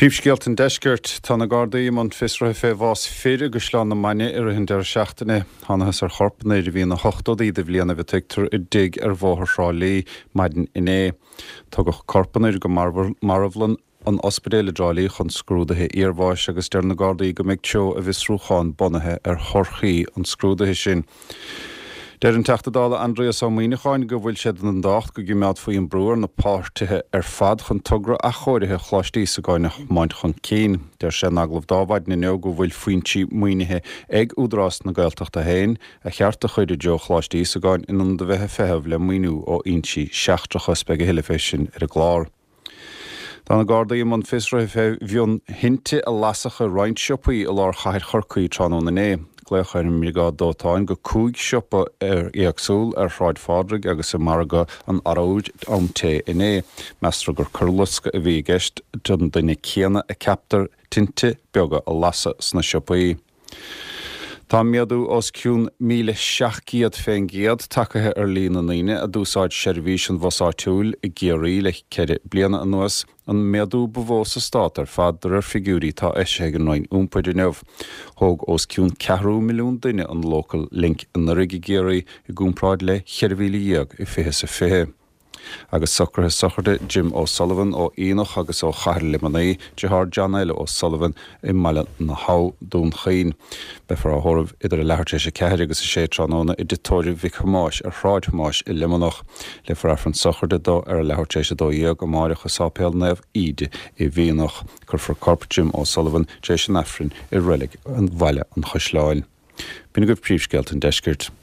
Príomhscéalta an Deiscirt. Tá na Gardaí i mbun fiosraithe fé bhás fir i gCaisleán na Mainge i rith an deireadh seachtaine. Thánathas ar chorp an fhir a bhí ina ochtóidí de bhlianaibh a tuigtear i dtigh ar Bhóthar Thrá Lí maidin inné. Tugadh corp an fhir go marbhlann an ospidéil i dTrá Lí chun scrúdaithe iarbháis agus deir na Gardaí go mbeidh treo a bhfiosrúcháin bunaithe ar thorthaí an scrúdaithe sin. Deir an Teachta Dála Aindrias Ó Muimhneacháin go bhfuil sé den dtábhacht go gcimeádfaí an brú ar na páirtithe ar fad chun togra athchóirithe Choláiste Íosagáin a thiomáint chun cinn. Deir sé in agallamh dó Adhmhaidin inniu go bhfuil foinsí maoinithe ag Údarás na Gaeltachta féin a cheart a chur i dtreo Choláiste Íosagáin in ionad a bheith ag feitheamh le maoiniú ó fhoinsí seachtracha. Beidh a thuilleadh fé sin ar an gclár. Tá na Gardaí i mbun fiosraithe fé mhionthinte a lasadh i roinnt siopaí i lár chathair Chorcaí tráthnóna inné. Glaodh ar an mBriogáid Dóiteáin go 5 siopa éagsúil ar Shráid Phádraig agus i Margadh an Arbhair am tae inné. Meastar gur coirloscadh a bhí i gceist don duine céanna a ceaptar tinte beaga a lasadh sna siopaí. Tá méadú os cionn 1,700% tagtha ar líon na ndaoine a d'úsáid seirbhís an bhus áitiúil i gCiarraí le ceithre bliana anuas, an méadú ba mhó sa stát ar fad de réir figiúirí atá eisithe ag an Roinn Iompair inniu. Thóg os cionn ceathrú milliún duine an Local Link anuraidh i gCiarraí i gcomparáid le 14,000 i 2020. Agus socruithe sochraide Jim O'Sullivan ó Aonach agus ó Chathair Luimnigh, deartháir John L. O'Sullivan i mBaile na hAbha, Dún Chaoin. Beifear á thórramh idir a leathuair tar éis 4 agus 6 tráthnóna i dTigh Tórraimh Mhic Thomáis ar Shráid Thomáis i Luimneach. Léifear Aifreann sochraide dó ar a leathuair tar éis 12 amáireach i Sáipéal Naomh Íde i bhFíonach. Cuirfear corp Jim O'Sullivan tar éis an Aifrinn i Reilig Bhaile an Chaisleáin. B'in agaibh príomhscéalta an deiscirt.